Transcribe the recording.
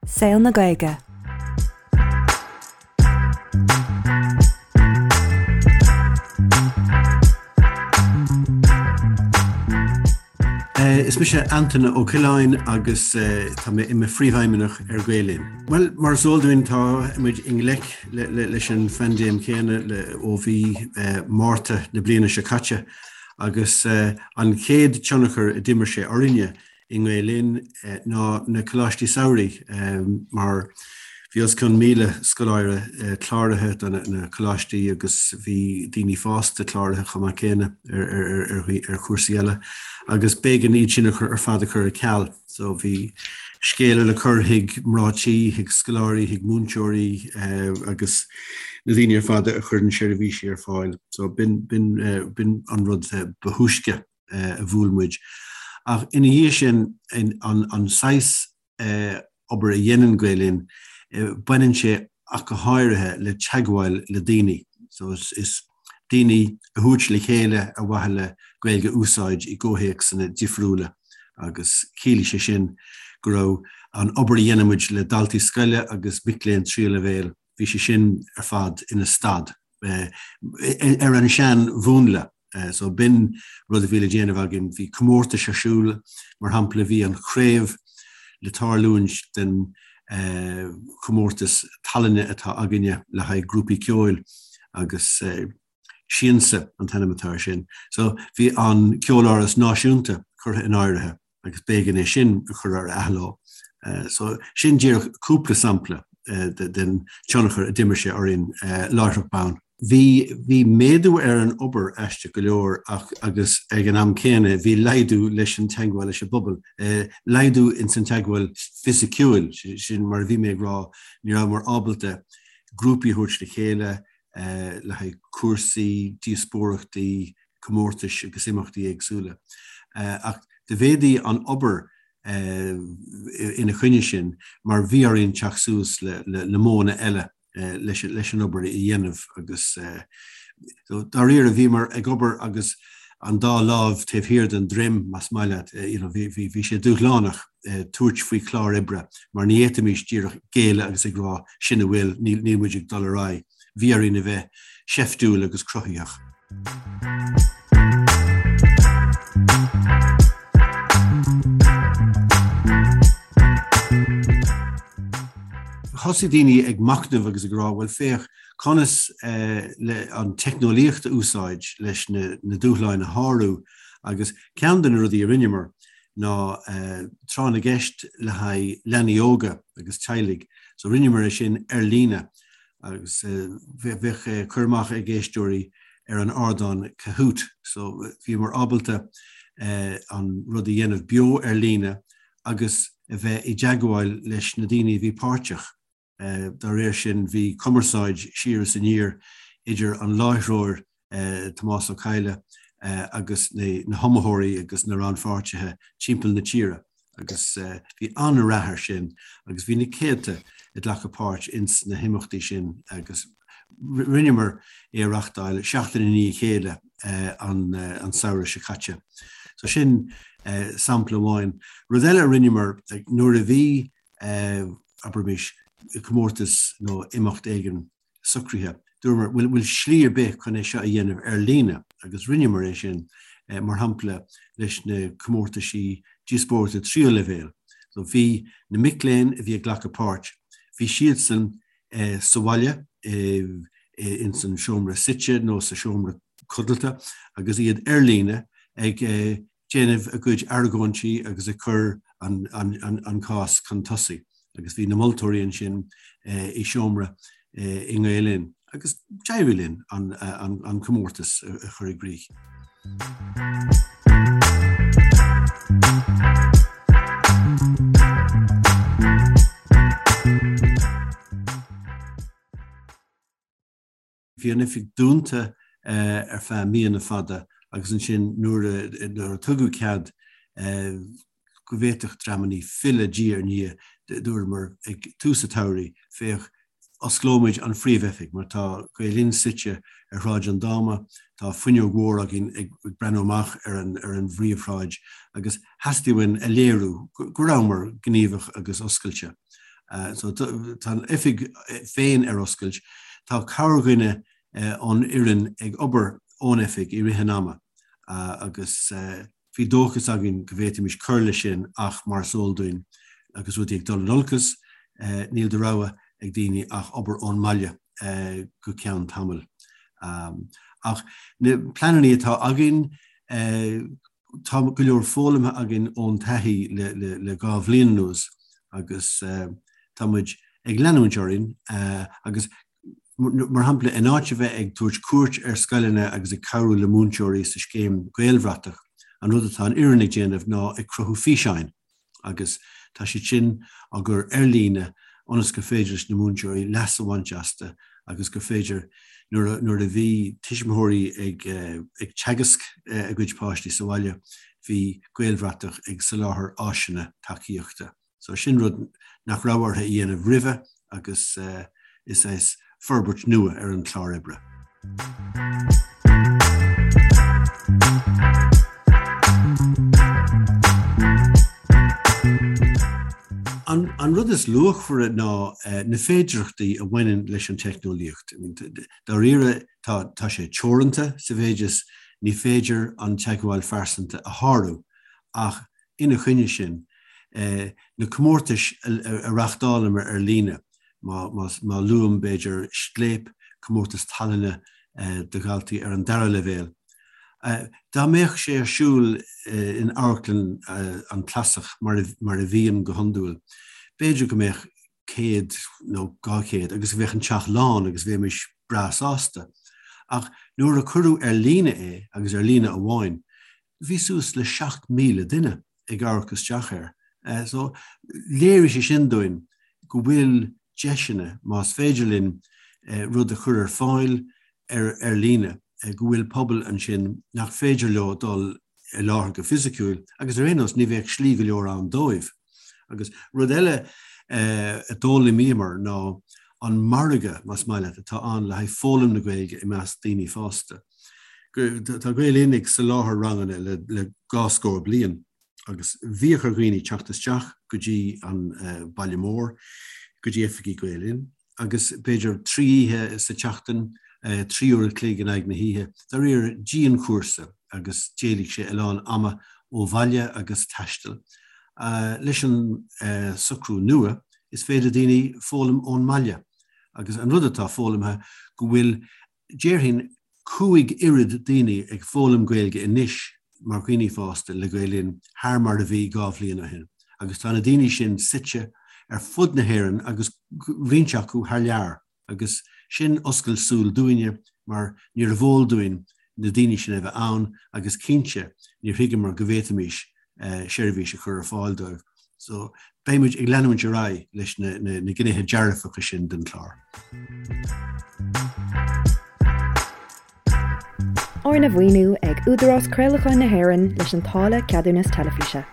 Saol na Gaeilge. Is mise Antaine Ó Coileáin agus tá mé i mo phríomhfheidhmeannach ar Gael Linn. Bhuel, mar is eol dúinn tá muid i ngleic leis an phaindéim chéanna ó mhí Márta na bliana seo caite agus an chéad tionchar a d'imir sé orainne i nGael Linn ná na coláistí samhraidh mar bhí os cionn 1,000 scoláire cláraithe do na coláistí agus bhí daoine fásta cláraithe chomh maith céanna ar chúrsaí eile agus b'éigean iad sin a chur ar fad a chur ar ceal. So bhí scéala le cur chuig mná tí, chuig scoláirí, chuig múinteoirí agus na daoine ar fad a chuireann seirbhísí ar fáil. So b'in b'in an rud ba thúisce. a bhuail muid. Ach ina dhiaidh sin, an saghas obair a dhéanann Gael Linn, baineann sé ach go háirithe le teagmháil le daoine. So is daoine a thabhairt le chéile ar mhaithe le Gaeilge a úsáid i gcomhthéacsanna difriúla agus chiallaigh sé sin go raibh an obair a dhéanann muid le daltaí scoile agus mic léinn tríú leibhéal, bhí sé sin ar fad ina stad ar an sean-mhúnla. So b'in rud a bhí le déanamh againn. Bhí comórtais ar siúl, mar shampla bhí an chraobh le tarlúint den chomórtas tallainne atá againne le haghaidh grúpaí ceoil agus Siansa an t-ainm atá air sin. So bhí an Ceoláras Náisiúnta curtha in áirithe. agus b'éigean é sin a chur ar athló. So sin díreach cúpla sampla den tionchar a d'imir sé orainn láithreach bonn. Bhí bhí méadú ar an obair aisteach go leor ach agus ag an am céanna bhí laghdú leis an teagmháil leis an bpobal, laghdú ins an teagmháil fisiciúil, sin mar a bhí mé ag rá, ní rabhamar ábalta grúpaí a thabhairt le chéile le haghaidh cúrsaí, díospóireachtaí, comórtais agus imeachtaí éagsúla. Ach do mhéadaigh an obair ina choinne sin mar bhí orainn teacht suas le modhanna eile leis an obair a dhéanamh agus dáiríre bhíomar ag obair agus an dá lámh taobh thiar den droim, más maith leat. Bhí sé dúshlánach tabhairt faoi chlár oibre mar ní fhéadfaimis díreach géilleadh agus ag rá sin a bhfuil, níl muid ag dul ar aghaidh. Bhí orainn a bheith seiftiúil agus cruthaitheach. Thosaigh daoine ag machnamh agus ag rá, bhuel féach, conas le an teicneolaíocht a úsáid leis na dúshláin a shárú agus ceann de na rudaí a rinneamar ná tráth na gceist le haghaidh leanaí óga agus teaghlaigh. So rinneamar é sin ar líne agus bheadh cur amach ag éisteoirí ar an ardán Kahoot. So bhíomar ábalta an rud a dhéanamh beo ar líne agus a bheith i dteagmháil leis na daoine a bhí páirteach. Dá réir sin, bhí cumarsáid siar is aniar idir an láithreoir Tomás Ó Cadhla agus na hiomaitheoirí agus na rannpháirtithe timpeall na tíre agus bhí an-rath air sin agus bhí na céadta ag glacadh páirt ins na himeachtaí sin agus rinneamar é a reachtáil seachtain i ndiaidh a chéile an samhradh seo caite. So sin sampla amháin. Rud eile a rinneamar nuair a bhí abraimis, comórtas nó imeacht éigin socraithe. Dúramar, bhfuil bhfuil slí ar bith chun é seo a dhéanamh ar líne? Agus rinneamar é sin, mar shampla, leis na comórtaisí díospóireachta tríú leibhéal. So bhí na mic léinn a bhí ag glacadh páirt, bhí siadsan sa bhaile, ins an seomra suite nó sa seomra codlata agus iad ar líne ag déanamh a gcuid argóintí agus ag cur an cás chun tosaigh agus bhí na moltóirí ansin i seomra i nGael Linn agus d'éirigh linn an comórtas a chur i gcrích. Bhí an oifig dúnta ar feadh míonna fada agus ansin nuair a tugadh cead go bhféadfadh dreamannaí filleadh diaidh ar ndiaidh, dúramar ag tús an tsamhraidh, féach, osclóimid an phríomhoifig mar tá Gael Linn suite ar Shráid an Dáma, tá fuinneog mhór againn ag breathnú amach ar an ar an bpríomhshráid agus theastaigh uainn a léiriú go rabhamar gníomhach agus oscailte. So tá an oifig féin ar oscailt. Tá corrdhuine ón fhoireann ag obair ón oifig i rith an ama agus bhí dóchas againn go bhféadfaimis cur leis sin ach mar is eol dúinn agus rudaí ag dul in olcas, níl de rogha ag daoine ach obair ón mbaile go ceann tamaill. Ach na pleananna atá againn, Tá go leor foghlamtha againn ón taithí le 2 bhliain anuas agus tá muid ag leanúint orainn agus mar shampla in áit a bheith ag tabhairt cuairt ar scoileanna agus ag cabhrú le múinteoirí sa scéim Gaelbhratach, an rud atá an fhoireann ag déanamh ná ag cruthú físeáin. agus tá siad sin á gcur ar líne ionas gur féidir leis na múinteoirí leas a bhaint astu agus gur féidir, nuair nuair a bhí tuismitheoirí ag ag teagasc a gcuid páistí sa bhaile, bhí Gaelbhratach ag soláthar áiseanna tacaíochta. So sin rud nach raibh orthu a dhéanamh roimhe agus is é forbairt nua ar an chlár oibre. An rud is luachmhaire ná na féidearthachtaí a bhaineann leis an teicneolaíocht. Dáiríre, tá sé teoranta sa mhéid is ní féidir an teagmháil phearsanta a shárú, ach ina choinne sin, na comórtais a reáchtálamar ar líne, má luaim, b'fhéidir, Scléip, comórtas tallainne do dhaltaí ar an dara leibhéal. Dá mbeadh sé ar siúl in Amharclann an Clasach mar a bhíonn go hiondúil, b'fhéidir go mbeadh 100 nó 200 agus bheadh an teach lán agus bheimis breá sásta. Ach nuair a cuireadh ar líne é, agus ar líne amháin, bhí suas le 7,000 duine ag amharc isteach air. So, léirigh sé sin dúinn go bhfuil deiseanna, más féidir linn rud a chur ar fáil ar ar líne, go bhfuil pobal ansin nach féidir leo dul i láthair go fisiciúil agus ar aon nós ní bheadh slí go leor ann dóibh. Agus rud eile a d'fhoghlaimíomar ná an margadh, más maith leat, atá ann le haghaidh foghlaim na Gaeilge i measc daoine fásta. Tá Gael Linn ag soláthar ranganna le dhá scór bliain agus bhíodh ar dhaoine teacht isteach go dtí an baile mór, go dtí oifigí Gael Linn agus b'fhéidir 3 oíche sa tseachtain, 3 uair a chloig in aghaidh na hoíche, dáiríre dianchúrsa agus d'éiligh sé a lán ama ó bhaile agus taistil. Leis an socrú nua, is féidir daoine foghlaim ón mbaile agus an rud atá foghlamtha go bhfuil Déarfainn 5 oiread daoine ag foghlaim Gaeilge anois mar dhaoine fásta le Gael Linn thar mar a bhí 2 bhliain ó shin agus tá na daoine sin suite ar fud na hÉireann agus roinnt acu thar lear agus sin oscailt súl dúinne mar níorbh eol dúinn na daoine sin a bheith ann agus cinnte níor thuigeamar go bhféadfaimis seirbhís a chur ar fáil dóibh. So, beidh muid ag leanúint ar aghaidh leis na na gnéithe dearfacha sin den chlár. Arna mhaoiniú ag Údarás Craolacháin na hÉireann leis an táille Ceadúnas Teilifíse.